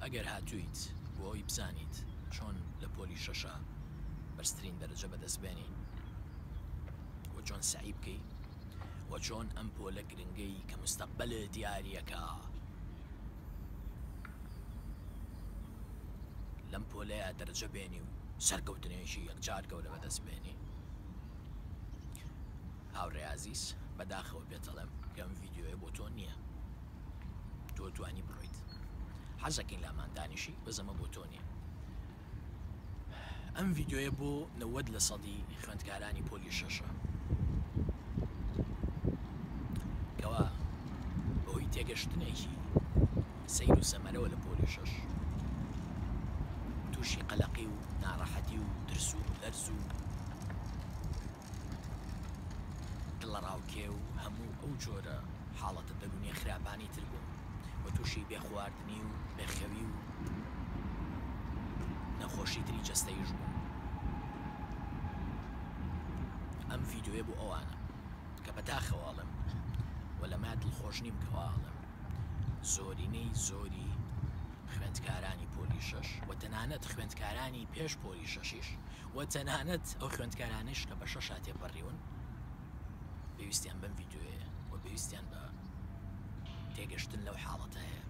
ئەگەر هاتوویت بۆ ئەوی بزانیت چۆن لە پۆلی شەشا بەرزترین دەرەجە بەدەست بێنی و چۆن سەعی بکەی و چۆن ئەم پۆلە گرنگەی کە مستەقبەلت دیاریەکا لەم پۆلەیا دەرەجە بێنی و سەرکەوتنێکی یەکجار گەورە بەدەست بێنی هاوڕێ ئازیز بەداخەوە پێتەڵێم کە ئەم ڤیدیۆیە بۆ تۆ نییە تۆ توانی بڕۆیت حەزەکەین لامان دانیشی بەس ئەمە بۆ تۆ نییە ئەم ڤیدیۆیە بۆ 90 لە سەدی خوێندکارانی پۆلی شەشە کەوا بەهۆی تێگەشتنێکی سەیر و سەمەرەوە لە پۆلی شەش تووشی قەلەقی و ناڕەحەتی و ترس و لەرز و دڵەڕاوکێ و هەموو ئەو جۆرە حاڵەتە دەروونیە خراپانەی تر بوون و تووشی بێخواردنی و بێخەوی و نەخۆشی تری جەستەیش بوون. ئەم ڤیدیۆیە بۆ ئەوانە کە بەداخەوە ئەڵێم و لەمە دڵخۆش نیم کەوا ئەڵێم زۆرینەی زۆری خوێندکارانی پۆلی شەش و تەنانەت خوێندکارانی پێش پۆلی شەشیش و تەنانەت ئەو خوێندکارانەیش کە بە شەشا تێپەڕیون پێویستیان بەم ڤیدیۆیەیە و پێویستیان بە تێگەشتن لەو حاڵەتە هەیە.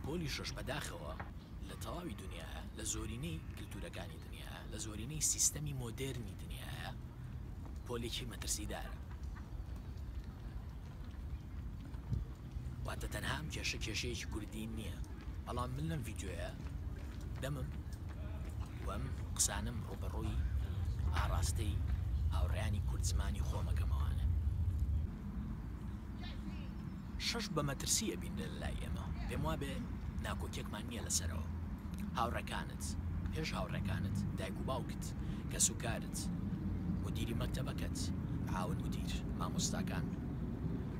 پۆلی شەش بەداخەوە لە تەواوی دنیاە لە زۆرینەی کللتورەکانی دنیا لە زۆرینەی سیستەمی مۆدێرنی دنیاە پۆلێکی مەترسیدارە واتە تەنها ئەم کێشە کێشەیەکی کوردی نییە بەڵام من لەم ڤیدیۆیە دەمم و ئەم قسانم ڕووبەڕووی ئاڕاستەی هاوڕێیانی کورد زمانی خۆمەکەمەوانە شەش بە مەترسی ئەبینرێ لە لای ئێمە پێم وابێ ناکۆکیەکمان نییە لەسەرەوە هاوڕێکانت پێش هاوڕێکانت دایک و باوکت کەسوکارت مدیری مەکتەبەکەت معاون مدیر مامۆستاکان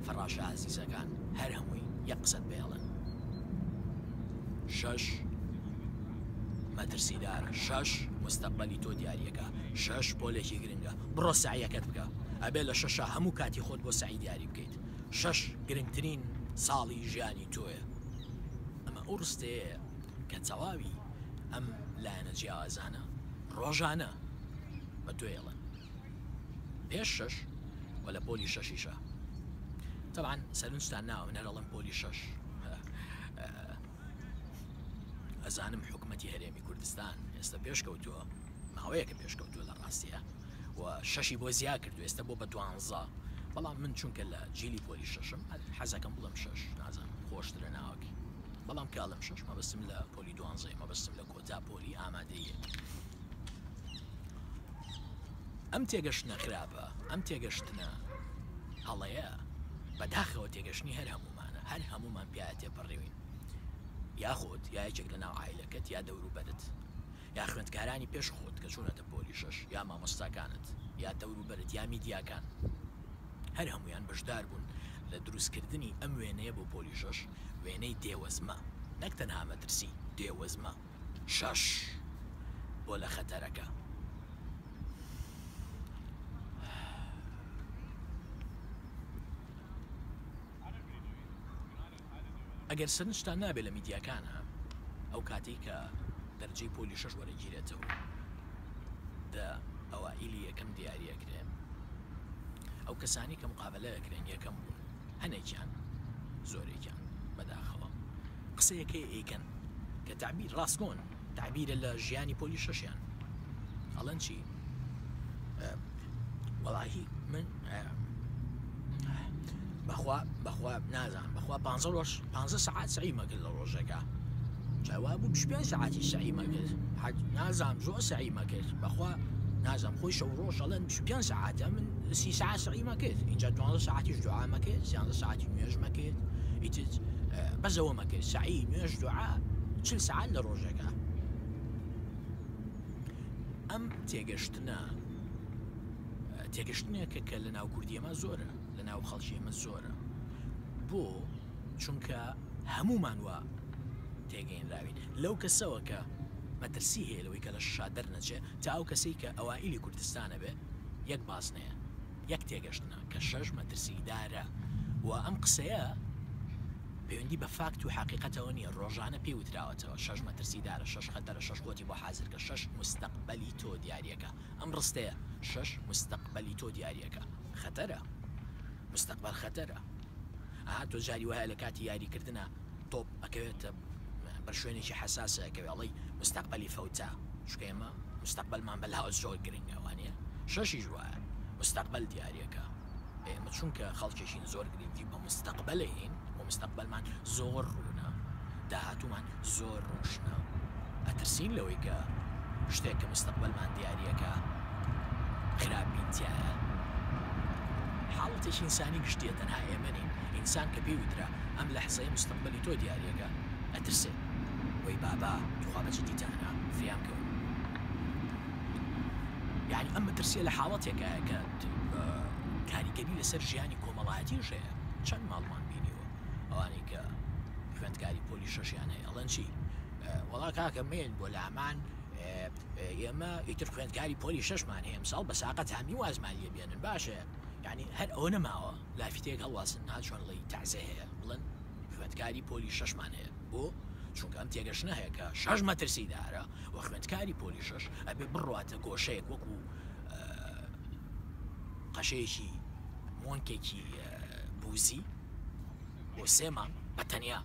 فەڕاشە ئازیزەکان هەر هەمووی یەک قسەت پێڵن شەش مەترسیدارە شەش مستەقبەلی تۆ دیاریەکە شەش پۆلێکی گرنگە بڕۆ سەعیەکەت بکە ئەبێ لە شەشا هەموو کاتی خۆت بۆ سەعی دیاری بکەیت شەش گرنگترین ساڵی ژیانی تۆیە ئەمە ئەو ڕستەیەیە کە تەواوی ئەم لایەنە جیاوازانە ڕۆژانە بە تۆ ئێڵن پێش شەش و لە پۆلی شەشیشە تەبعەن سەرنجتان ناوە من هەر ئەڵێم پۆلی شەش ئەزانم حکومەتی هەرێمی کوردستان ئێستا پێشکەوتووە ماوەیەکە پێشکەوتووە لە ڕاستیە و شەشی بۆ زیا کردو ئێستا بۆ بە دوانزە بەڵام من چونکە لە جیلی پۆلی شەشم حەزەکەم بڵم شەش نازانم خۆشترە ناوەکەی بەڵام کاڵم شەش مەبەستم لە پۆلی دوانزەیە مەبەستم لە کۆتا پۆلی ئامادەیە ئەم تێگەشتنە خراپە ئەم تێگەشتنە هەڵەیە بەداخەوە تێگەشتنی هەر هەمومانە هەر هەمومان پیاە تێپەڕیوین یاخود یا یەکێک لە ناو عایلەکەت یا دەوروبەرت یا خوێندکارانی پێش خۆت کە چوونەتە پۆلی شەش یا مامۆستاکانت یا دەوروبەرت یا میدیاکان هەر هەموویان بەشدار بوون لە دروستکردنی ئەم وێنەیە بۆ پۆلی شەش وێنەی دێوەزمە نەک تەنها مەترسی دێوەزمە شەش بۆ لە خەتەرەکە. ئەگەر سەرنجتان نابێ لە میدیاکانا ئەو کاتەی کە دەرجەی پۆلی شەش وەرەگیرێتەوە دە ئەوائیلی یەکەم دیاری ئەکرێن ئەو کەسانی کە مقابلە ئەکرێن یەکەم بوون هەنێکیان زۆرێکیان بەداخەوە قسەیەکەی ئەیکەن کە تعبیر ڕاستگۆن تەعبیرە لە ژیانی پۆلی شەشیان ئەڵێن چی وەڵاهی من بەخوا بەخوا نازانم بەخوا پ ڕۆژ پ سەعات سەعیمە کرد لە ڕۆژەکە جاوا بوو پێ سەعاتی سەعیمە کرد نازانم زۆر سەعیمە کرد بەخوا نازانم خۆی شەو ڕۆژ ئەڵێن پێ سەعاتە من سی سەعات سەعیمە کرد اینجا دوانزە سەعاتیش دوعامە کرد سیانزە سەعاتی نوێژمە کرد ئیتر بەس ئەوەمە کرد سەعی نوێژ دوعا چل سەعات لە ڕۆژێکا ئەم تێگەشتنە تێگەشتنێکە کە لە ناو کوردی ئێمە زۆرە لە ناو خەڵکی ئێمە زۆرە بۆ چونکە هەمومان وا تێگەینراوین لەو کەسەوە کە مەترسی هەیە لەوەی کە لە شا دەرنەچێ تا ئەو کەسەی کە ئەوائیلی کوردستانە بێ یەک بازنەیە یەک تێگەشتنە کە شەش مەترسیدارە و ئەم قسەیە پێ. پەیوەندی بە فاکت و حەقیقەتەوە نییە، ڕۆژانە پێی وتراوەتەوە، شەش مەترسیدارە، شەش خەتەرە، شەش خۆتی بۆ حازرکە، شەش موستەقبەلی تۆ دیاریەکا. ئەم ڕستەیە، شەش موستەقبەلی تۆ دیاریەکا، خەتەرە. موستەقبەل خەتەرە. ئەها تۆ جاری وایە لە کاتی یاریکردنا تۆپ ئەکەوێتە بەر شوێنێکی حەساسە ئەکەوێ ئەڵێی موستەقبەلی فەوتا. چونکە ئێمە موستەقبەلمان بەلاوە زۆر گرنگە وانیە؟ شەشیش وایە موستەقبەل دیاریەکا. ئێمە چونکە خەڵکێکین زۆر گرنگی بە مستەقبەل ئەیەین و مستەقبەلمان زۆر ڕوونە، داهاتوومان زۆر ڕۆشنە، ئەترسین لەوەی کە شتێک کە مستەقبەلمان دیاریەکە خراپ بین تیایە. حاڵەتێکی ئینسانی گشتیە تەنها ئێمە نین، ئینسان کە پێی وترا ئەم لەحزەیە مستەقبەلی تۆ دیاریەکە ئەترسێ، وەی بابا توخوا بە جدیتانە فریام کەون. یانی ئەم مەترسیە لە حاڵەتێکایە کە کاریگەری لەسەر ژیانی کۆمەڵایەتیش هەیە چەند ماڵمان بینیوە ئەوانەی کە خوێندکاری پۆلی شەشیان هەیە ئەڵێن چی وەڵا کاکە مێن بۆ لامان ئێمە ئیتر خوێندکاری پۆلی شەشمان هەیە ئەمساڵ بە ساقە تامی وازمان لێ بێنن باشە یعنی هەر ئەوە نەماوە لافیتەیەک هەڵواسن ها چۆن ڵی تازە هەیە بڵێن خوێندکاری پۆلی شەشمان هەیە بۆ چونکە ئەم تێگەشتنە هەیە کە شەش مەترسیدارە و خوێندکاری پۆلی شەش ئەبێ بڕواتە گۆشەیەک وەکو قەشەیەکی مۆنکێکی بوزی بۆ سێ مانگ بە تەنیا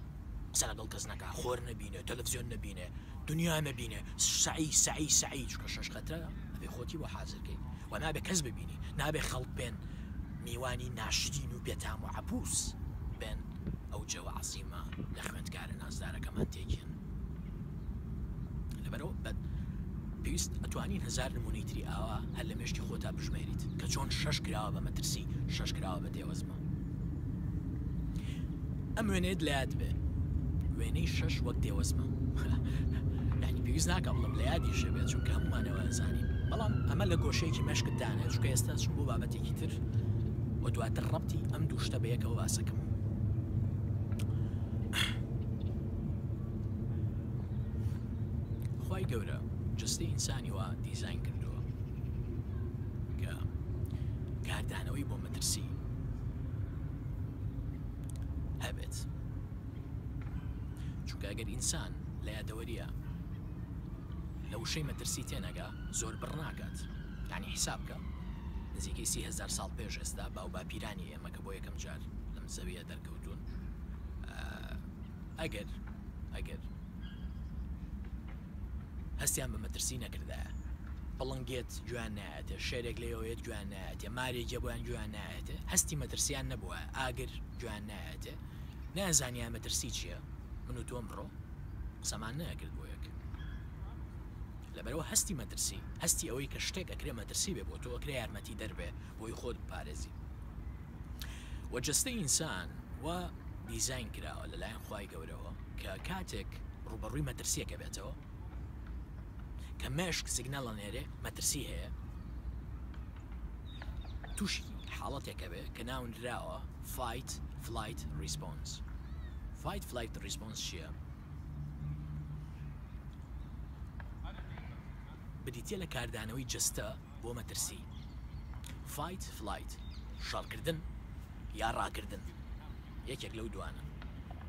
قسە لەگەڵ کەس نەکا خۆر نەبینێ تەلەفزیۆن نەبینێ دنیا نەبینێ سەعی سەعی سەعی چونکە شەش خەترە ئەبێ خۆتی بۆ حازرکەی و نابێ کەس ببینی نابێ خەڵک بێن میوانی ناشرین و بێتام و عەبوس بێن ئەو جەوە عەزیمە لە خوێندکارە نازدارەکەمان تێکێن. لەبەرئەوە بە پێویست ئەتوانین هەزار نمونەی تری ئاوا هەر لە مێشکی خۆتا بژمێریت کە چۆن شەش کراوە بە مەترسی شەش کراوە بە دێوەزمە ئەم وێنەیەت لە یاد بێ وێنەی شەش وەک دێوەزمە یعنی پێویست ناکە بڵم لە یادیشە بێت چونکە هەمومانەوە ئەزانین بەڵام ئەمە لە گۆشەیەکی مێشکت دانێ چونکە ئێستا چون بۆ بابەتێکی تر و دواتر ڕەبتی ئەم دوو شتە بەیەکەوە باسەکەم. خوای گەورە جەستەی ئینسانی وا دیزاین کردووە کە کاردانەوەی بۆ مەترسی هەبێت چونکە ئەگەر ئینسان لە یادەوەریە لە وشەی مەترسی تێنەگا زۆر بڕ ناکات یعنی حیساب بکە نزیکەی 30هزار ساڵ پێش ئێستا باو باپیرانی ئێمە کە بۆ یەکەم جار لەم زەویە دەرکەوتون ئەگەر ئەگەر هەستیان بە مەترسی نەکردایە پڵنگێت گوێیان نایەتێ شێرێک لێوەیەت گوێیان نایەتێ مارێکێ بۆیان گوێیان نایەتێ هەستی مەترسیان نەبووە ئاگر گوێیان نایەتێ نازانیان مەترسی چییە من و تۆم ڕۆ قسەمان نەکرد بۆ یەک لەبەرەوە هەستی مەترسی هەستی ئەوەی کە شتێک ئەکرێ مەترسی بێ بۆ تۆ ئەکرێ یارمەتی دەربێ بۆی خۆت بپارێزی وە جەستەی ئینسان وا دیزاین کراوە لەلایەن خوای گەورەوە کە کاتێک ڕووبەڕووی مەترسیەکە بێتەوە کە مێشک سیگنال ئەنێرێ مەترسی هەیە تووشی حاڵەتێکە بێ کە ناونراوە fight flight response fight flight response چییە؟ بریتە لە کاردانەوەی جەستە بۆ مەترسی، Fight Flight، شەڕکردن یا ڕاکردن، یەکێک لەو دوانە،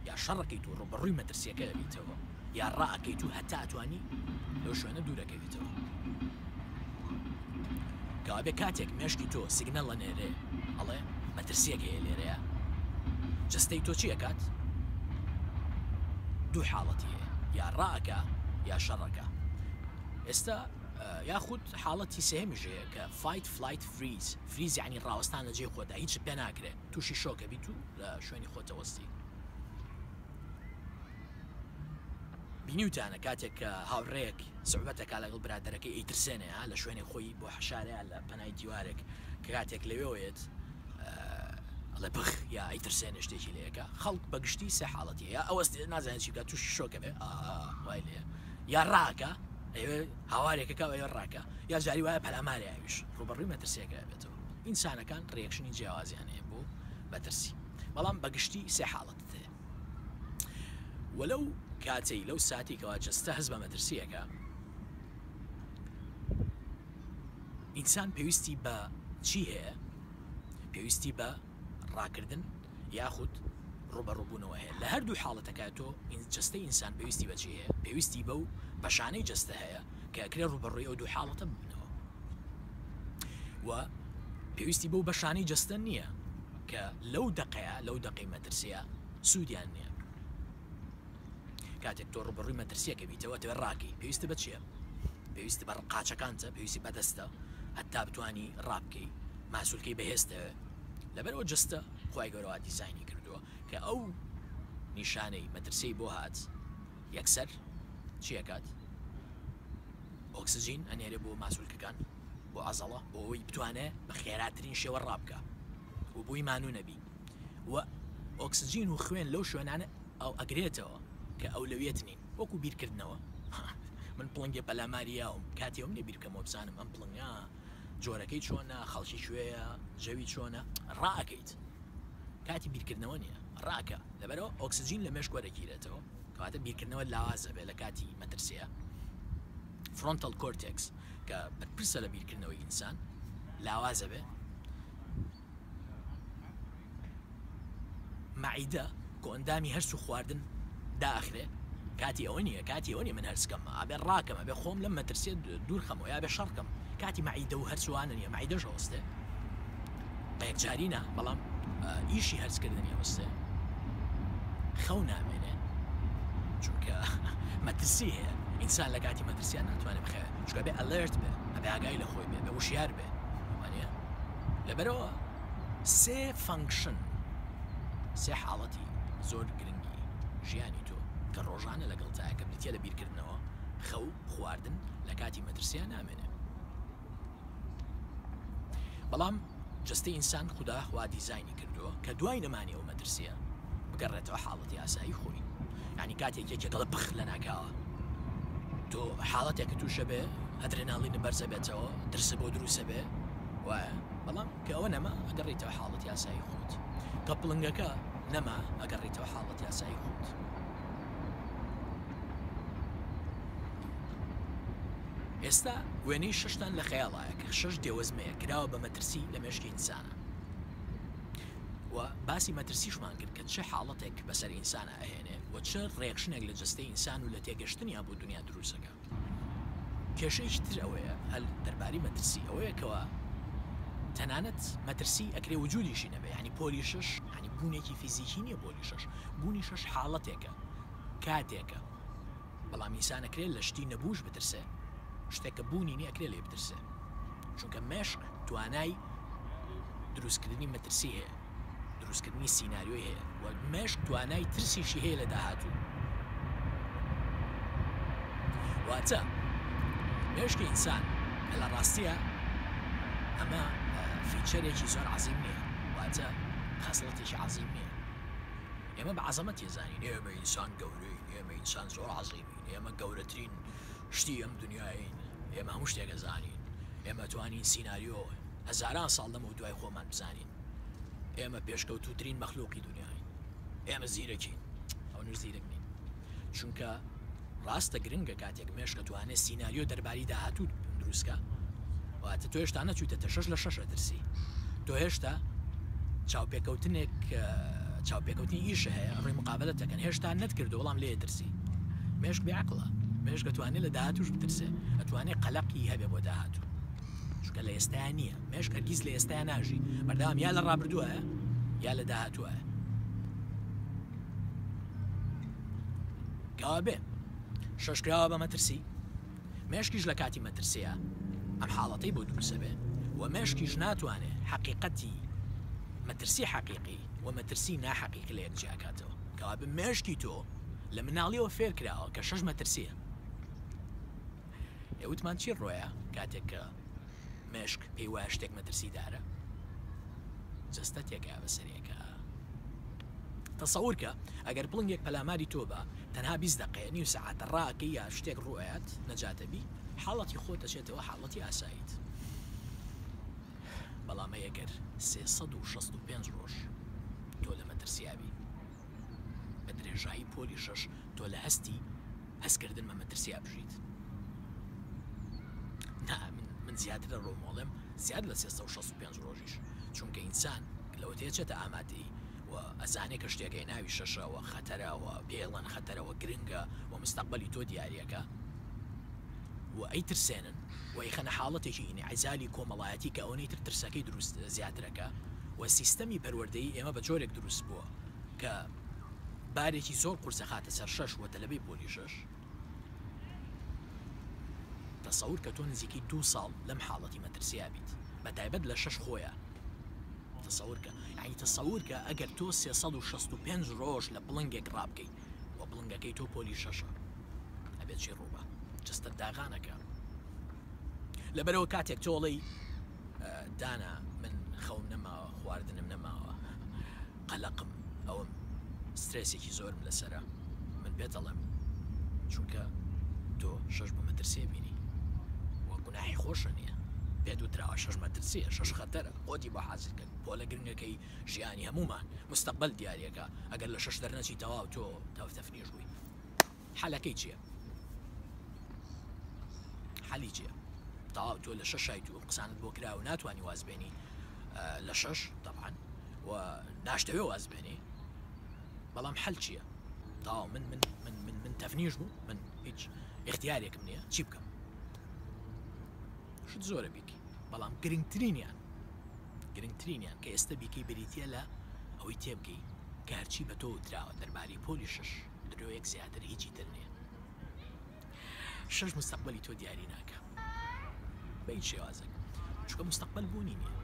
یا شەڕەکەیت و ڕووبەڕووی مەترسیەکە ئەبیتەوە یا ڕائەکەیت و هەتا ئەتوانی لەو شوێنە دوورەکەویتەوە. کەوابێ کاتێک مێشکی تۆ سیگنەڵ ئەنێرێ ئەڵێ مەترسیەک هەیە لێرەیە، جەستەی تۆ چی ئەکات؟ دوو حاڵەتی هەیە، یا ڕائەکا یا شەڕەکا. ئێستا یاخود حاڵەتی سێهەمیش هەیە کە fight flight freeze، freeze یانی ڕاوەستان لە جێی خۆتدا هیچت پێ ناکرێ تووشی شۆک ئەبیت و لە شوێنی خۆت ئەوەستی. بینیوتانە کاتێک کە هاوڕێیەک سوعبەتەکا لەگەڵ برادەرەکەی ئەیترسێنێ ها لە شوێنێک خۆی بۆ حەشارەیە لە پەنای دیوارێک کە کاتێک لەوێوە یەت ئەڵێ بخ یا ئەیترسێنێ شتێکی لێ ئەکا خەڵک بە گشتی سێ حاڵەتی هەیە ئەوەستێ نازانێت چی بکات تووشی شۆکە بێ وای لێ یا ڕاکە ئەیەوێ هاوارێکەکە ئەوێ ڕاکە یا جاری وایە پەلامارێ ئەویش ڕووبەڕووی مەترسیەکە ئەبێتەوە ئینسانەکان reaction ی جیاوازیان هەیە بۆ مەترسی بەڵام بەگشتی سێ حاڵەتت هەیە وە لەو کاتەی لەو ساتی کەوا جەستە هەست بە مەترسیەکە ئینسان پێویستی بە چی هەیە پێویستی بە ڕاکردن یاخود. ڕووبەڕووبوونەوە هەیە. لە هەردوو حاڵەتەکە تۆ جەستەی ئینسان پێویستی بە چی هەیە؟ پێویستی بەو بەشانەی جەستە هەیە کە ئەکرێ ڕووبەڕووی ئەو دوو حاڵەتە ببنەوە و پێویستی بەو بەشانەی جەستە نییە کە لەو دەقەیە لەو دەقەی مەترسیە سوودیان نییە. کاتێک تۆ ڕووبەڕووی مەترسیەکە بیتەوە ئەتەوێت ڕاکەی پێویستە بە چییە؟ پێویستە بە قاچەکانتە پێویستی بەدەستە هەتا بتانی ڕابکەی ماسولکەی بەهێزتەوێ لەبەرەوە جەستە خوای گەورە وا دیزاینی کردووە کە ئەو نیشانەی مەترسیی بۆ هات یەکسەر چیەکات ئۆکسجین ئەنێرێ بۆ ماسولکەکان بۆ عەزەڵە بۆ ئەوەی بتوانێ بە خێراترین شێوە ڕابکە و بۆی مانوو نەبی و ئۆکسجین و خوێن لەو شوێنانە ئەو ئەگرێتەوە کە ئەولەویەت نین وەکو بیرکردنەوە من پڵنگێ پەلاماری یاوم کاتی ئەوم نیە بیرکەمەوە بزانم ئەم پڵنگە جۆرەکەی چۆنە خەڵکی کوێیە جەوی چۆنە ڕائەکەیت کاتی بیرکردنەوە نییە ڕاکە لەبەرەوە ئۆکسجین لە مێشک وەرەگیرێتەوە کەواتە بیرکردنەوە لاوازە بێ لە کاتی مەترسیە frontal cortex کە بەرپرسە لە بیرکردنەوەی ئینسان لاوازە بێ مەعیدە کۆئەندامی هەرس و خواردن دائەخرێ کاتی ئەوە نییە کاتی ئەوە نیە من هەرس کەم ئەبێ ڕاکەم ئەبێ خۆم لەم مەترسیە دوور خەمەوە یا بێ شەڕ کەم کاتی مەعیدە و هەرسوانە نییە مەعیدەش ئەوەستێ بە یەکجاری نا بەڵام ئیشی هەرسکردنی ئەوەستێ خەو نامێنێ چونکە مەترسی هەیە ئینسان لە کاتی مەترسیان ناتوانێت بخەوێت چونکە بێ alert بێ ئەبێ ئاگای لە خۆی بێ بە وشیار بێ وانە لەبەرئەوە سێ function، سێ حاڵەتی زۆر گرنگی ژیانی تۆ کە ڕۆژانە لەگەڵتایە کە بریتیە لە بیرکردنەوە، خەو، خواردن، لە کاتی مەترسیا نامێنێ. بەڵام جەستەی ئینسان خودا وا دیزاینی کردووە کە دوای نەمانی ئەو مەترسیە بگەڕێتەوە حاڵەتی ئاسایی خۆی. یانی کاتێک یەکێک دەڵێ پخ لەناکاوە تۆ حاڵەتێکت تووشە بێ ئەدرێناڵینت بەرزە بێتەوە ترست بۆ دروستە بێ وایە بەڵام کە ئەوە نەما ئەگەڕیتەوە حاڵەتی ئاسایی خۆت کە پڵنگەکە نەما ئەگەڕیتەوە حاڵەتی ئاسایی خۆت ئێستا وێنەی شەشتان لە خەیاڵایە کە شەش دێوەزمەیە کراوە بە مەترسی لە مێشکی ئینسانە و باسی مەترسیشمان کرد کە چ حاڵەتێک بەسەر ئینسانە ئەهێنێ و چ reaction ێک لە جەستەی ئینسان و لە تێگەشتنیا بۆ دنیا دروستەکە کێشەیەکی تر ئەوەیە هەل دەرباری مەترسی ئەوەیە کەوا تەنانەت مەترسی ئەکرێ وجودیشی نەبێ یانی پۆلی شەش یانی بوونێکی فیزیکی نییە پۆلی شەش بوونی شەش حاڵەتێکە کاتێکە بەڵام ئینسان ئەکرێ لە شتی نەبووش بترسێ شتێک کە بوونی نییە ئەکرێ لێ بترسێ چونکە مێشک توانای دروستکردنی مەترسی هەیە دروستکردنی سیناریۆی هەیە و مێشک توانای ترسیشی هەیە لە داهاتوو. واتە مێشکی ئینسان کە لە ڕاستیە ئەمە feature ێکی زۆر عەزیم نییە، واتە خەسڵەتێکی عەزیم نییە. ئێمە بە عەزەمەت تێزانین ئێمە ئینسان گەورەین، ئێمە ئینسان زۆر عەزیمین، ئێمە گەورەترین شتی ئەم دنیایین، ئێمە هەموو شتێک ئەزانین، ئێمە توانین سیناریۆ هەزاران ساڵ لەمەو دوای خۆمان بزانین. ئێمە پێشکەوتووترین مەخلوقی دنیاین ئێمە زیرەکین ئەونەش زیرەک نین چونکە ڕاستە گرنگە کاتێک مێشکە توانێت سیناریۆ دەرباری داهاتوو دروستکە واتە تۆ هێشتا نەچوویتە شەش لە شەش ئەترسی تۆ هێشتا چاوپێکەوتنێک چاوپێکەوتنی ئیش هەیە ڕێ مقابلە دەکەن هێشتا نەتکردو بەڵام لێ ترسی مێشک بێ عەقڵە مێشک ئەتوانێت لە داهاتوش بترسێ ئەتوانێت قەلەقی هەبێ بۆ داهاتوو چونکە لە ئێستایا نییە مێشک هەرگیز لە ئێستایا ناژی بەردەوام یا لە ڕابردووە یا لە داهاتووە کەوابێ شەشکراوە بە مەترسی مێشکیش لە کاتی مەترسیە ئەم حاڵەتەی بۆ دروسە بێ و مێشکیش ناتوانێ حەقیقەتی مەترسی حەقیقی و مەترسی ناحەقیقی لە یەک جیاکاتەوە کەوابێ مێشکی تۆ لە مناڵیەوە فێر کراوە کە شەش مەترسیە ئێ وتمان چی ڕۆیە کاتێک کە مێشک پێی وایە شتێک مەترسیدارە جەستە تێکا بەسەرێکە تەسەور کە ئەگەر پڵنگێک پەلاماری تۆ بە تەنها 20 دقەیە نیو سەعاتە ڕاکەی یا شتێک ڕوئەیات نەجاتە بی حاڵەتی خۆت دەچێتەوە حاڵەتی ئاساییت بەڵام ئەگەر 365 ڕۆژ تۆ لە مەترسیابی بە درێژایی پۆلی شەش تۆ لە هەستی هەستکردن بە مەترسیا بژیت نا من من زیاتر ڕۆمۆڵێم زیاد لە 365 ڕۆژیش چونکە ئینسان لەوە تێچێتە ئامادەی. و ئەزانێ کە شتێک هەیە ناوی شەشە و خەتەرە و پێڵەن خەتەرە و گرنگە و مستەقبەلی تۆ دیاریەکە و ئەیترسێنن و ئەیخەنە حاڵەتێکی ئینعزالی کۆمەڵایەتی کە ئەوەنەی تر ترسەکەی دروست زیاترەکە و سیستەمی پەروەردەیی ئێمە بە جۆرێک دروست بووە کە بارێکی زۆر قورس ئەخاتە سەر شەش و تەلەبەی پۆلی شەش. تەسەور کە تۆ نزیکەی دوو ساڵ لەم حاڵەتی مەترسیا بیت بە تایبەت لە شەش خۆیە تەسەور کە یعنی تەسەور کە ئەگەر تۆ 365 ڕۆژ لە پڵنگێک ڕابکەی و پڵنگەکەی تۆ پۆلی شەشە ئەبێت چی ڕووبا جەستەت داغانەکە لەبەرەوە کاتێک تۆڵەی دانا من خەوم نەماوە خواردنم نەماوە قەلەقم ئەوم سترێسێکی زۆرم لەسرە من پێت ئەڵێم چونکە تۆ شەش بە مەترسیە بینی و گوناحی خۆشە نییە پێت وتراوە شەش مەترسیە شەش خەتەرە خۆتی بۆ حازر کرد پۆلە گرنگەکەی ژیانی هەمومان مستەقبل دیارەکە ئەگەر لە شەش دەرنەچی تەواو تۆ تەفتەفنیش بووی حەلەکەی چییە؟ حەلی چییە؟ تەواو تۆ لە شەشایت و قسانت بۆ کرا و ناتوانانی واز بێنی لە شەش طبعا و ناشتەوێ واز بێنی بەڵام حەل چییە؟ تەواو من من من من من تەفنیش بوو من هیچ اختیارێکم نییە چی بکەم شت زۆرە بیکی بەڵام گرنگترینیان گرنگترینیان کە ئێستا بیکەی بریتە لە ئەوەی تێبگەی کە هەرچی بە تۆ وتراوە دەربارەی پۆلی شش درۆیەک زیاتر هیچی تر نییە شەش مستەقبەلی تۆ دیاری ناکە بە هیچ شێوازێک چونکە مستەقبەل بوونی نییە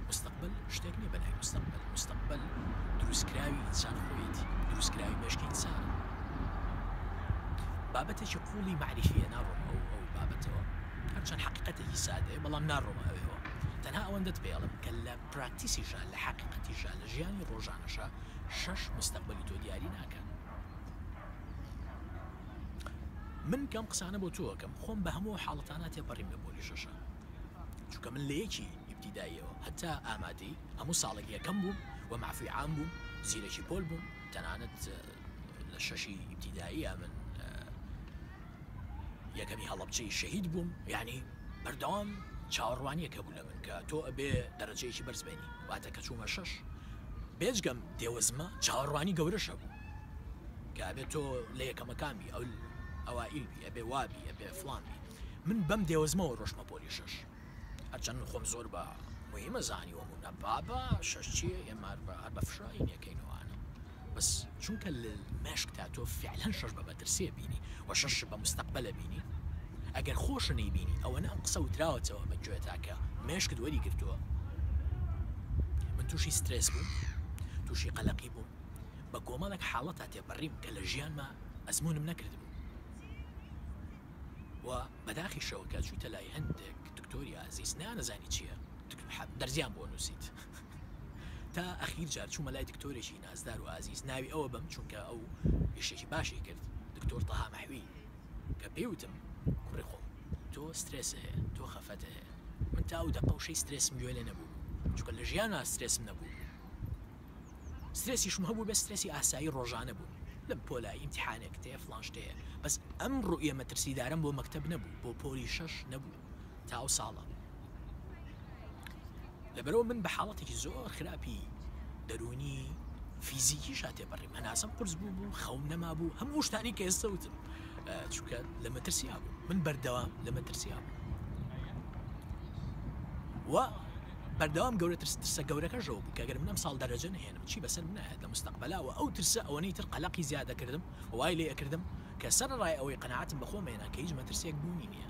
مستەقبل شتێک نییە بەناوی مستەقبل مستەقبل دروستکراوی ئینسان خۆیەتی دروستکراوی مێشکی ئینسانە بابەتێکی قوڵی معریفیە ناڕۆم ئەو ئەو بابەتەوە هەرچەند حقیقەتێکی سادەیە بەڵام ناڕۆمە ئەوێەوە تەنها ئەوەندەت پێڵم کە لە پراکتیسیشا لە حقیقەتیشا لە ژیانی ڕۆژانەشا شەش مستەقبەلی تۆ دیاری ناکا. من کەم قسانە بۆ تۆ ئەکەم خۆم بە هەموو حاڵەتانە تێپەڕیم لە پۆلی شەشە چونکە من لە یەکی ئیبتیداییەوە هەتا ئامادەی هەموو ساڵێک یەکەم بووم و مەعفوی عام بووم زیرەکی پۆل بووم تەنانەت لە شەشی ئیبتیداییە من یەکەمی هەڵەبجەی شەهید بووم یعنی بەردەوام چاوەڕوانیەک هەبوو لە من کە تۆ ئەبێ دەرەجەیەکی بەرز بێنی واتە کە چوومە شەش بێجگەم دێوەزمە چاوەڕوانی گەورەش هەبوو کە ئەبێ تۆ لە یەکەمەکان بی ئەو ئەوائیل بی ئەبێ وابی ئەبێ فڵان بی من بەم دێوەزمەوە ڕۆشتمە پۆلی شەش هەرچەند من خۆم زۆر بە مهمە زانیوەم و نە بابا شەش چییە ئێمە هەر بە فشاین یەکەینەوانە بەس چونکە لە مێشکتا تۆ فعلەن شەش بە مەترسیە بینی و شەش بە مستەقبەلە بینی ئەگەر خۆشە نەیبینی ئەوەنە ئەم قسە وتراوەتەوە بە گوێتا کە مێشکت وەری گرتووە من تووشی سترێس بووم تووشی قەلەقی بووم بە کۆمەڵێک حاڵەتا تێپەڕیم کە لە ژیانما ئەزموونم نەکردبوو و بەداخیشەوە کە چوویتە لای هەندێک دکتۆری ئازیز نانەزانی چییە دەرزیان بۆ نووسیت تا ئەخیر جار چوومە لای دکتۆرێکی نازدار و ئازیز ناوی ئەوە بەم چونکە ئەو ئیشێکی باشی کرد دکتۆر تەها مەحوی کە پێی وتم کوڕی خۆم تۆ سترێس هەیە تۆ خەفەت هەیە من تا ئەو دەقە وشەی سترێسم گوێ لێ نەبوو چونکە لە ژیانا سترێسم نەبوو سترێسیشم هەبوو بە سترێسی ئاسایی ڕۆژانە بوو لەم پۆلە ئیمتحانێک تێ فڵان شتەیە بەس ئەم ڕوئیە مەترسیدارەم بۆ مەکتەب نەبوو بۆ پۆلی شەش نەبوو تا ئەو ساڵە لەبەرەوە من بە حاڵەتێکی زۆر خراپی دەروونی فیزیکیشا تێپەڕیم هەناسەم قورس بوو بوو خەوم نەمابوو هەموو شتانی کە ئێستا وتم چونکە لە مەترسیا بوو من بەردەوام لە مەترسیا بوو و بەردەوام گەورە ترس ترسە گەورەکەشەوە بوو کە گەر من ئەم ساڵ دەرەجە نهێنم چی بەسەر منایەت لە مستەقبەلا و ئەو ترسە ئەوەنەی تر قەلەقی زیادە کردم وای لێ ئەکردم کە سەرەڕای ئەوەی قەناعەتم بە خۆم هێنا کە هیچ مەترسیەک بوونی نییە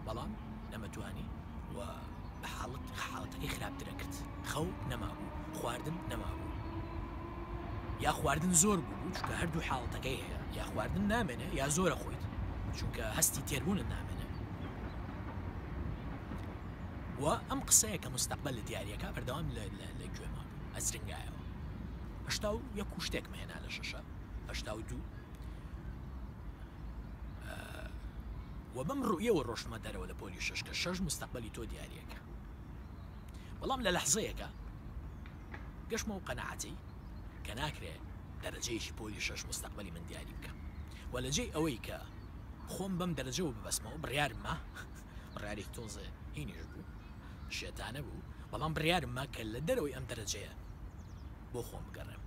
بەڵام نەمەتوانی و بە حاڵەت حاڵەتەکەی خراپتر ئەکرد خەو نەمابوو خواردن نەمابوو یا خواردن زۆر بوو چونکە هەردوو حاڵەتەکەی هەیە یا خواردن نامێنێ یا زۆرە خۆیت چونکە هەستی تێربوونت نامێنێ و ئەم قسەیە کە مستەقبل لە دیارەکە بەردەوام لە گوێما بوو ئەزرنگایەوە 81 و شتێکم هێنا لە شەشە 82 و بەم ڕوئیەوە ڕۆشتمە دەرەوە لە پۆلی شەش کە شەش مستەقبەلی تۆ دیاریەکە بەڵام لە لەحزەیەکە گەشتمە و قەناعەتی کە ناکرێ دەرەجەیەکی پۆلی شەش مستەقبەلی من دیاری بکە و لە جێی ئەوەی کە خۆم بەم دەرەجەوە ببەستمەوە بڕیارمە بڕیارێکی تۆزێ هینیش بوو شێتانە بوو بەڵام بڕیارمە کە لە دەرەوەی ئەم دەرەجەیە. بۆ خۆم بگەڕێم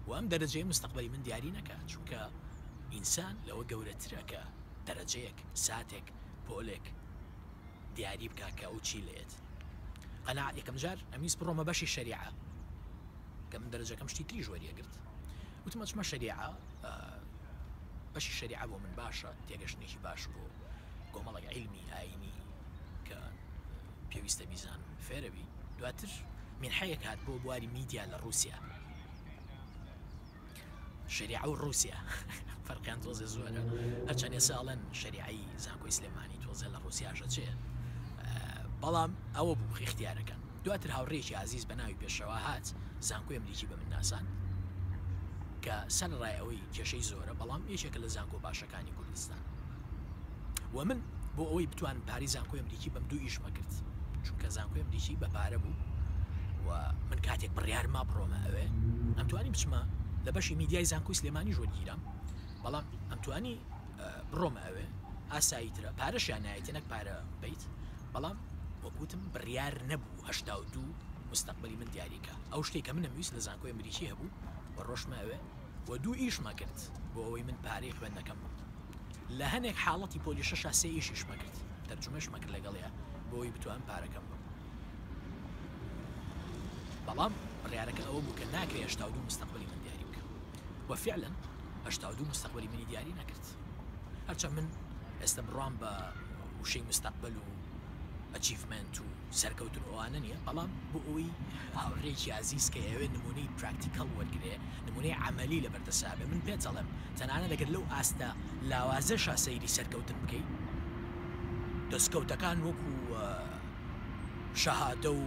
و ئەم دەرەجەیە مستەقبەلی من دیاری نەکا، چونکە ئینسان لەوە گەورەترە کە دەرەجەیەک، ساتێک، پۆلێک دیاری بکا کە ئەو چی لێت. قەناعەت یەکەم جار ئەمویست بڕۆمە بەشی شەریعە کە من دەرەجەکەم شتی تریش وەریەگرت وتم ئەچمە شەریعە بەشی شەریعە بۆ من باشە تێگەشتنێکی باش بۆ کۆمەڵێک عیلمی ئاینی کە پێویستە بیزانم فێرەبی دواتر مینحەیەک هات بۆ بواری میدیا لە ڕووسیا شەریعە و ڕووسیا فەرقیان تۆزێ زۆرە هەرچەند ئێستا ئەڵێن شەریعەی زانکۆی سلێمانی تۆزێ لە ڕووسیاشە چێ بەڵام ئەوە بوو اختیارەکان دواتر هاوڕێکی ئازیز بە ناوی پێشەوا هات زانکۆی ئەمریکی بە من ناساند کە سەرەڕای ئەوەی کێشەی زۆرە بەڵام یەکێکە لە زانکۆ باشەکانی کوردستان و من بۆ ئەوەی بتوانم پارەی زانکۆی ئەمریکی بەم دوو ئیشمە کرد چونکە زانکۆی ئەمریکی بە پارە بوو و من کاتێک بڕیار ما بڕۆمە ئەوێ ئەمتوانی بچمە لە بەشی میدیای زانکۆی سلێمانی ژۆرگیرام بەڵام ئەمتوانی بڕۆمە ئەوێ ئاسایی ترە پارەشیان نایەتێ نەک پارە بیت بەڵام وەکوتم بڕیار نەبوو 82 مستەقبلی من دیاریکە ئەو شتێک کە منم ویست لە زانکۆی ئەمریکی هەبوو و ڕۆشمە ئەوێ و دوو ئیشمە کرد بۆ ئەوەی من پارەی خوێندنەکەم بم لە هەنێک حاڵەتی پۆلی شەشا سێ ئیشیشمە کرد تەرجومەشمە کرد لەگەڵیا بۆ ئەوەی بتوانم پارەکەم بم بەڵام بڕیارەکە ئەوە بوو کە ناکرێ 82 مستەقبلی من دیاری بکەم و فعلا 82 مستەقبلی منی دیاری نەکرد هەرچەند من ئێستا بڕوام بە وشەی مستەقبل و achievement و سەرکەوتن و ئەوانە نییە، بەڵام بۆ ئەوەی هاوڕێیەکی ئازیز کە ئەیەوێت نموونەی practical وەرگرێ، نموونەی عەمەلی لەبەر دەستا بێ، من پێت ئەڵێم تەنانەت ئەگەر لەو ئاستە لاوازەشا سەیری سەرکەوتن بکەی، دەستکەوتەکان وەکو شەهادە و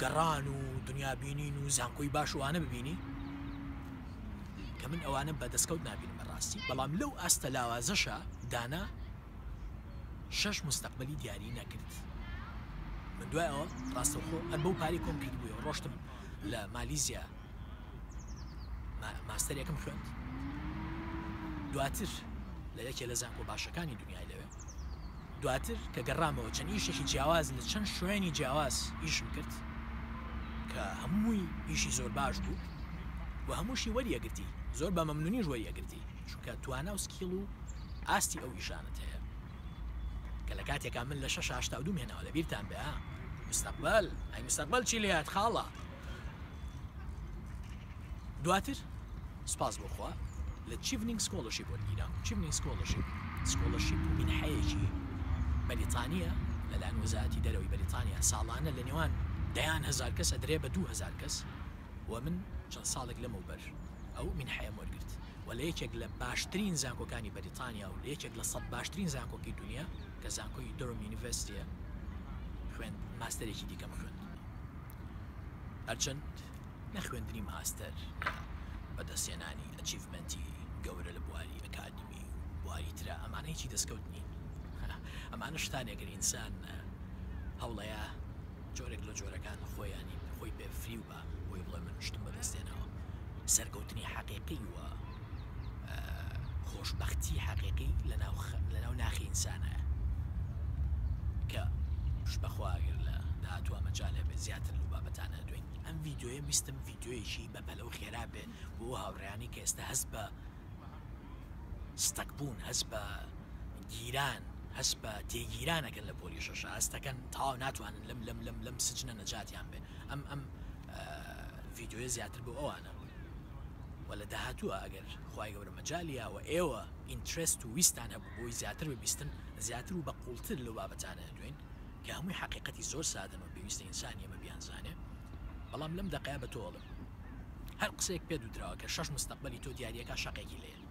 گەڕان و دنیابینین و زانکۆی باش و ئەوانە ببینی، کە من ئەوانە بە دەستکەوت نابینم بەڕاستی، بەڵام لەو ئاستە لاوازەشا دانا شەش مستەقبەلی دیاری نەکرد. من دوای ئەوە ڕاستەوخۆ هەر بەو پارەی کۆم کردبوویەوە ڕۆشتم لە مالیزیا ماستەرێکم خوێند دواتر لە یەکێ لە زانکۆ باشەکانی دنیای لەوێ دواتر کە گەڕامەوە چەند ئیشێکی جیاواز لە چەند شوێنی جیاواز ئیشم کرد کە هەمووی ئیشی زۆر باش بوو و هەمووشی وەریەگرتی زۆر بە مەمنونیش وەریەگرتی چونکە توانا و skill و ئاستی ئەو ئیشانەت هەیە کە لە کاتێکا من لە شەش 82 هێناوە لە بیرتان بێ ها مستەقبل ئەی مستەقبل چی لێات خاڵە دواتر سپاس بۆ خوا لە Chevening scholarship وەرگیرام Chevening scholarship scholarship و مینحەیەکی بەریتانیە لەلایەن وەزارەتی دەرەوەی بەریتانیا ساڵانە لە نێوان دەیان هەزار کەس ئەدرێ بە 2000 کەس و من چەند ساڵێک لەمەوبەر ئەو مینحەیەم وەرگرت و لە یەکێک لە باشترین زانکۆکانی بەریتانیا و لە یەکێک لە 100 باشترین زانکۆکی دنیا کە زانکۆی Durham University یە خوێند ماستەرێکی دیکەم خوێند هەرچەند نە خوێندنی ماستەر نە بەدەستهێنانی achievement ی گەورە لە بواری ئەکادیمی و بواری ترا ئەمانە هیچی دەستکەوت نین ئەمانە شتانێکن ئینسان هەوڵەیە جۆرێک لە جۆرەکان خۆیانی خۆی پێ فریو بە بۆی بڵێ من شتم بەدەستێنەوە سەرکەوتنی حەقیقی و خۆشبەختی حەقیقی لەناو ناخی ئینسانە کە پشت بەخوا ئەگەر لە داهاتووە مەجال هەبێت زیاتر لەو بابەتانە دوێن ئەم ڤیدیۆیە ویستم ڤیدیۆیەکی بەپەلە و خێرا بێ بۆ هاوڕێیانی کە ئێستا هەست بە stuck بوون هەست بە گیران هەست بە تێگیرانەکەن لە پۆلی شەشە هەستەکەن تەواو ناتوانن لەم لەم لەم لەم سجنە نەجاتیان بێ ئەم ئەم ڤیدیۆیە زیاتر بۆ ئەوانە و لە داهاتووە ئەگەر خوای گەورە مەجالی یا و ئێوە interest و ویستان هەبوو بۆی زیاتر ببیستن زیاتر و بە قوڵتر لەو بابەتانە دوێن کە هەمووی حەقیقەتی زۆر سادەن و پێویستە ئینسان ئێمە بیانزانێ بەڵام لەم دەقەیە بە تۆ ئەڵێم هەر قسەیەک پێت وتراوە کە شەش مستەقبەلی تۆ دیاریەکە شەقێکی لێیە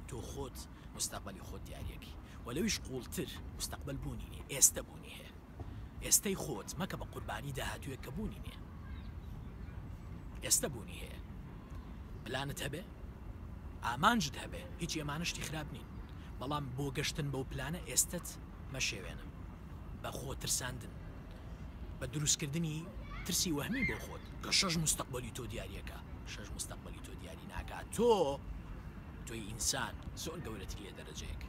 تۆ خۆت مستەقبەلی خۆت دیاریەکەی و لەویش قوڵتر مستەقبەل بوونی نیە ئێستە بوونی هەیە ئێستەی خۆت مەکە بە قوربانی داهاتوویەک کە بوونی نیە ئێستە بوونی هەیە پلانت هەبێ ئامانجت هەبێ هیچ ئەمانە شتی خراپ نین بەڵام بۆ گەشتن بەو پلانە ئێستت مەشێوێنە بە خۆ ترساندن بە دروستکردنی ترسی وەهمی بۆ خۆت کە شەش مستەقبەلی تۆ دیاریەکە شەش مستەقبەلی تۆ دیاری ناکات تۆ تۆی ئینسان زۆر گەورەتری لە دەرەجەیەک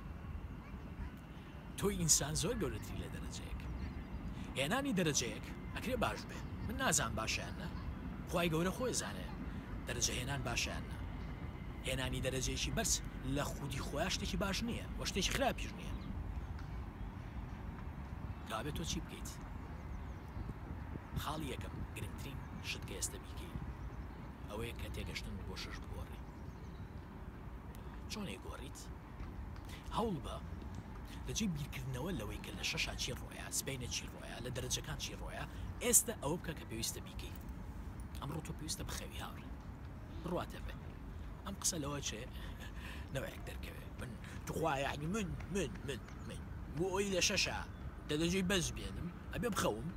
تۆی ئینسان زۆر گەورەتری لە دەرەجەیەک. هێنانی دەرەجەیەک ئەکرێ باش بێ من نازانم باشە یان نا خوای گەورە خۆی زانێ. دەرەجە هێنان باشە یان نا؟ هێنانی دەرەجەیەکی بەرز لە خودی خۆیا شتێکی باش نییە و شتێکی خراپیش نییە. کەوابێت تۆ چی بکەیت؟ خاڵی یەکەم گرنگترین شت کە ئێستە بیکەی ئەوەیە کە تێگەشتنت بۆ شەش بگۆڕی. چۆن ئەیگۆڕیت؟ هەوڵبە لەجێی بیرکردنەوە لەوەی کە لە شەشا چی ڕۆیا، سبەینێ چی ڕۆیا، لە دەرەجەکان چی ڕۆیا، ئێستە ئەوە بکە کە پێویستە بیکەی. ئەمڕۆ تۆ پێویستە بخەوی هاوڕێ. بڕواتە بێ. ئەم قسە لەوە چێ نەوەیەک دەرکەوێ. من توخوا یعنی من من من من بۆ ئەوی لە شەشا دەرەجەی بەرز بێنم ئەبێ بخەوم.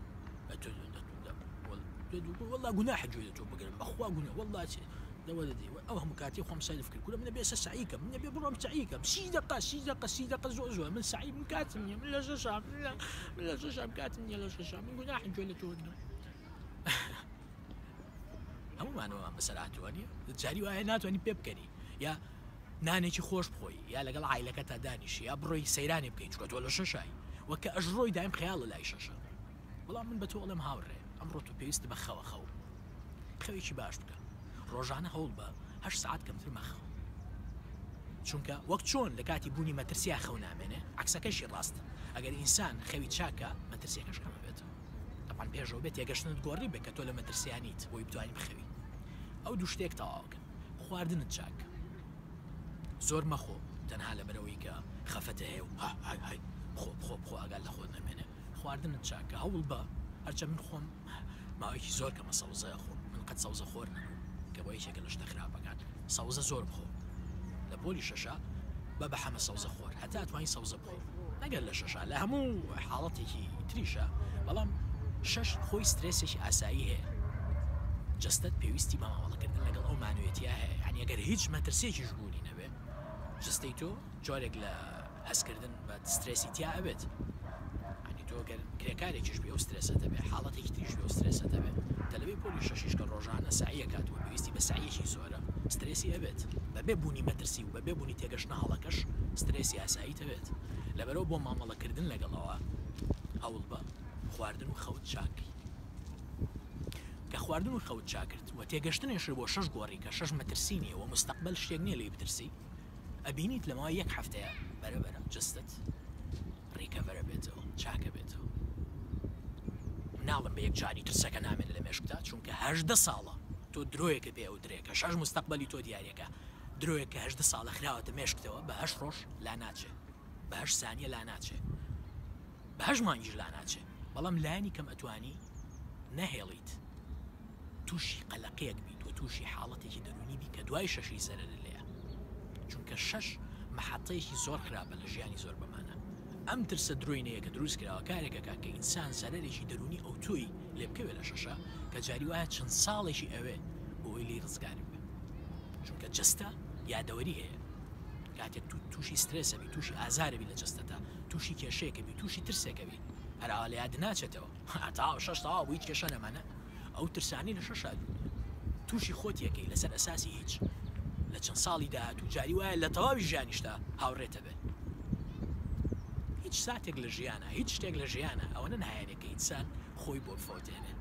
والله گوناحە گوێ لە تۆ بگرم بەخوا گوناه والله چێ لەوە دەدەی ئەو هەموو کاتی خۆم سەرف کرد کورە من ئەبێ ئێستا سەعی کەم من ئەبێ بڕۆم سەعی کەم سی دەقە سی دەقە سی دەقە زۆر زۆر من سەعی من کاتم نییە من لە شەشام من لە من لە شەشام کاتم نییە لە شەشام من گوناحم گوێ لە تۆ بگرم هەموومانەوە بەسەر هاتووە نییە جاری وایە ناتوانانی پێ بکەنی یا نانێکی خۆش بخۆی یا لەگەڵ عیلەکە تا دانیشی یا بڕۆی سەیرانی بکەیت چکە تۆ لە شەشای وەکە ئەژڕۆی دایم خەیاڵە لای شەشە بەڵام من بە تۆ ئەڵێم هاوڕێ ئەمڕۆ تۆ پێویست بە خەوە خەو خەوێکی باش بکە ڕۆژانە هەوڵبە هەشت سەعات کەمتر مەخەوە چونکە وەک چۆن لە کاتی بوونی مەترسیا خەو نامێنێ عەکسەکەشی ڕاستە ئەگەر ئینسان خەوی چاکە مەترسیەکەش کەم ئەبێتەوە تەبعەن پێشەوە بێت تێگەشتنت گۆڕی بێ کە تۆ لە مەترسیا نیت بۆی بتوانی بخەوی ئەو دوو شتێک تەواوکە خواردنت چاک زۆر مەخۆ تەنها لەبەرەوەی کە خەفەتە هەیە و ها های های بخۆ بخۆ بخۆ ئاگات لە خۆت نەمێنێ خواردنت چاکە هەوڵ بە هەرچە من خۆم ماوەیەکی زۆر کەمە سەوزە ئەخۆم من قەت سەوزە خۆر نەبووم کە بۆ یەکێکە لە شتە خراپەکان سەوزە زۆر بخۆ لە پۆلی شەشە بە بە حەمە سەوزە خۆر هەتا توانی سەوزە بخۆ نەگەر لە شەشە لە هەموو حاڵەتێکی تریشە بەڵام شەش خۆی سترێسێکی ئاسایی هەیە جەستەت پێویستی بە مامەڵەکردن لەگەڵ ئەو مانوێتیا هەیە یعنی ئەگەر هیچ مەترسیەکیش بوونی نەبێ جەستەی تۆ جۆرێک لە هەستکردن بە سترێسی تیا ئەبێت یانی تۆ گەر کرێکارێکیش بی ئەو سترێسەت هەبێ حاڵەتێکی تریش بێ ئەو سترێسەت هەبێ تەلەبەی پۆلی شەشیش کە ڕۆژانە سەعی ئەکات و پێویستی بە سەعیەکی زۆرە سترێسی ئەبێت بەبێ بوونی مەترسی و بەبێ بوونی تێگەشتنە هەڵەکەش سترێسی ئاساییت ئەبێت لەبەرئەوە بۆ مامەڵەکردن لەگەڵەوە هەوڵبە خواردن و خەوت چاک کەی کە خواردن و خەوت چاکرد و تێگەشتنێشت بۆ شەش گۆڕی کە شەش مەترسی نییە و مستەقبەل شتێک نییە لێی بترسی ئەبینیت لە ماوەی یەک هەفتەیا بەرە بەرە جەستەت recover ئەبێتەوە چاک ئەبێتەوە. ناڵێم بە یەکجاری ترسەکە نامێنێ لە مێشکتا چونکە 18 ساڵە تۆ درۆیەکە پێ ئەوترێ کە شەش مستەقبەلی تۆ دیارەکە درۆیەک کە 18 ساڵە خراوەتە مێشکتەوە بە هەشت ڕۆژ لا ناچێ بە هەشت سانیە لا ناچێ بە هەشت مانگیش لا ناچێ بەڵام لایەنی کەم ئەتوانی نەهێڵیت تووشی قەلەقیەک بیت و تووشی حاڵەتێکی دەروونی بی کە دوای شەشی زەرەرت لێیە چونکە شەش مەحەتەیەکی زۆر خراپە لە ژیانی زۆر بەمانە ئەم ترسە درۆینەیە کە دروست کراوە کارێک ئەکات کە ئینسان زەرەرێکی دەروونی ئەوتۆی لێ بکەوێ لە شەشە کە جاری وایە چەند ساڵێکی ئەوێ بۆ ئەوەی لێی ڕزگار بێ چونکە جەستە یادەوەری هەیە کاتێک تو تووشی سترێسەبی تووشی ئازارەبی لە جەستەتا تووشی کێشەیەکەبی تووشی ترسێکەبی هەر ئاوا لە یاد ناچێتەوە تەواو شەش تەواو بوو هیچ کێشە نەما نە ئەو ترسانەی لە شەشا تووشی خۆت یەکەی لەسەر ئەساسی هیچ لە چەند ساڵی داهاتوو جاری وایە لە تەواوی ژیانیشتا هاوڕێتە بێ هیچ ساتێک لە ژیانە هیچ شتێک لە ژیانە ئەوەنە نایەنێ کە ئینسان خۆی بۆ بفەوتێنێ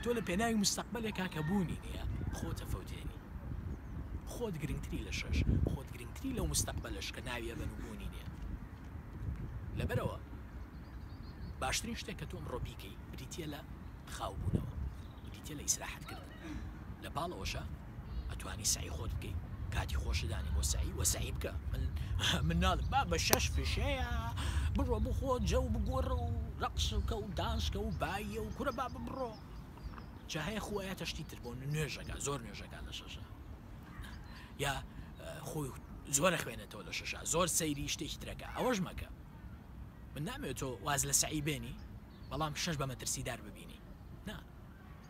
تۆ لە پێناوی مستەقبلێکا کە بوونی نییە خۆتە فەوتێنی خۆت گرنگتری لە شەش خۆت گرنگتری لەو مستەقبلەش کە ناویە بەن و بوونی نییە لەبەرئەوە باشترین شتێک کە تۆ ئەمڕۆ بیکەی بریتییە لە خاوبوونەوە، بریتییە لە ئیسراحەتکردن. لە پاڵ ئەوەشا ئەتوانی سەعی خۆت بکەی، کاتی خۆشت دانی بۆ سەعی و سەعی بکە. من من ناڵێم بابە شەش فشەیە بڕۆ بخۆ جەو بگۆڕە و ڕەقس بکە و دانس کە و بایە و کورە بابە بڕۆ. جا هەیە خۆ ئەیاتە شتی تر بۆ نوێژەکە زۆر نوێژەکە لە شەشە. یا خۆی زۆر ئەخوێنێتەوە لە شەشا زۆر سەیری شتێکی ترەکە ئەوەش مەکە من نامەوێت تۆ واز لە سەعی بێنی بەڵام شەش بە مەترسیدار ببینی نا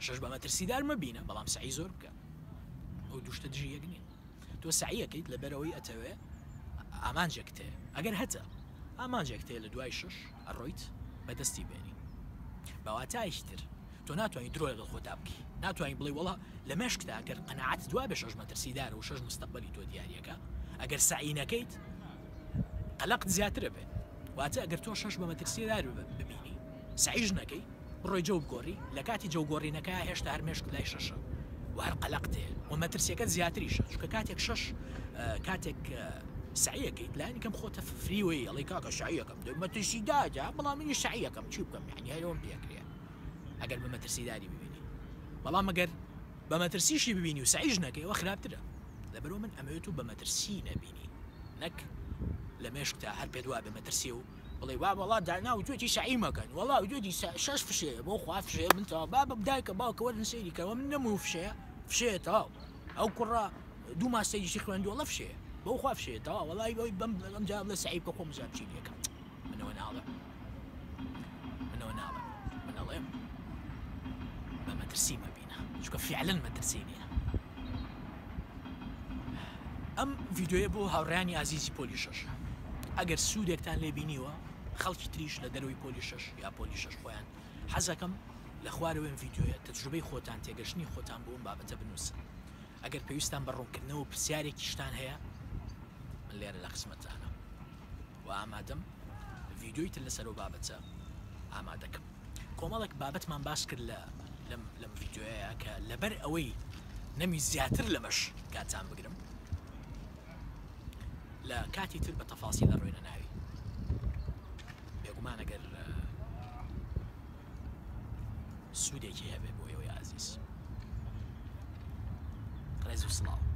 شەش بە مەترسیدار مەبینە بەڵام سەعی زۆر بکە ئەو دوو شتە دژی یەک نین تۆ سەعیەکەیت لەبەرەوەی ئەتەوێ ئامانجێک تێ ئەگەر هەتە ئامانجێک تێ لە دوای شەش ئەڕۆیت بەدەستی بێنی بەواتایەکی تر تۆ ناتوانی درۆ لەگەڵ خۆتا بکەی ناتوانی بڵێی وەڵا لە مێشکتا گەر قەناعەتت وابێ شەش مەترسیدارە و شەش مستەقبەلی تۆ دیاریەکە ئەگەر سەعی نەکەیت قەلەقت زیاترە بێ واتە ئەگەر تۆ شەش بە مەترسیدار ببینی سەعیش نەکەی بڕۆی جەو بگۆڕی لە کاتی جەو گۆڕینەکە هێشتا هەر مێشکت لای شەشە و. و هەر قەلەقتێ و مەترسیەکەت زیاتریشە چونکە کاتێک شەش کاتێک سەعیەکەیت لانی کەم خۆتە فریوەی ئەڵێ کاکە سەعیەکەم دە مەترسیدارە بەڵام منیش سەعیەکەم چی بکەم یعنی هەرەوەم پێکرێ ئەگەر بە مەترسیداری ببینی بەڵام ئەگەر بە مەترسیشی ببینی و سەعیش نەکەی ئەوە خراپترە لەبەرئەوە من ئەمەوێت و بە مەترسی نەبینی نەک لە مێشکتا هەر پێت وابێ مەترسی و بڵێ وا وەڵا دانا وتوێتی سەعی مەکەن وەڵا وتوێتی شەش فشەیە بۆ خوا فشەیە من تەواو بابە دایکە باوکە وەرن سەیری کەەوە من نەموو فشەیە فشەیە تەواو ئەو کوڕە دوو ماستەریشی خوێندووە وەڵا فشەیە بۆ خوا فشەیە تەواو وەڵای بەوەی بەم ئەم جا بڵێ سەعی بکە خۆم بزانم چی لێکەم منەوە ناڵێم منەوە ناڵێم من ئەڵێم بە مەترسی مەبینە چونکە فعلەن مەترسی نییە ئەم ڤیدیۆیە بۆ هاوڕێیانی ئازیزی پۆلی شەش ئەگەر سوودێکتان لێ بینیوە خەڵکی تریش لە دەرەوەی پۆلی شەش یا پۆلی شەش خۆیان حەزەکەم لە خوارەوەی ئەم ڤیدیۆیە تەجروبەی خۆتان تێگەشتنی خۆتان بۆ ئەم بابەتە بنووسن ئەگەر پێویستان بە ڕوونکردنەوە و پرسیارێکیشتان هەیە من لێرە لە خزمەتتانم و ئامادەم ڤیدیۆی تر لەسەر ئەو بابەتە ئامادەکەم. کۆمەڵێک بابەتمان باس کرد لە لەم لەم ڤیدیۆیە کە لەبەر ئەوەی نەمی زیاتر لەمەش کاتان بگرم لە کاتی تر بە تەفاسی لە ڕوێنە ناوی بێگومان ئەگەر سوودێکی هەبێ بۆ ئێوەی ئازیز ڕێز و سڵاو.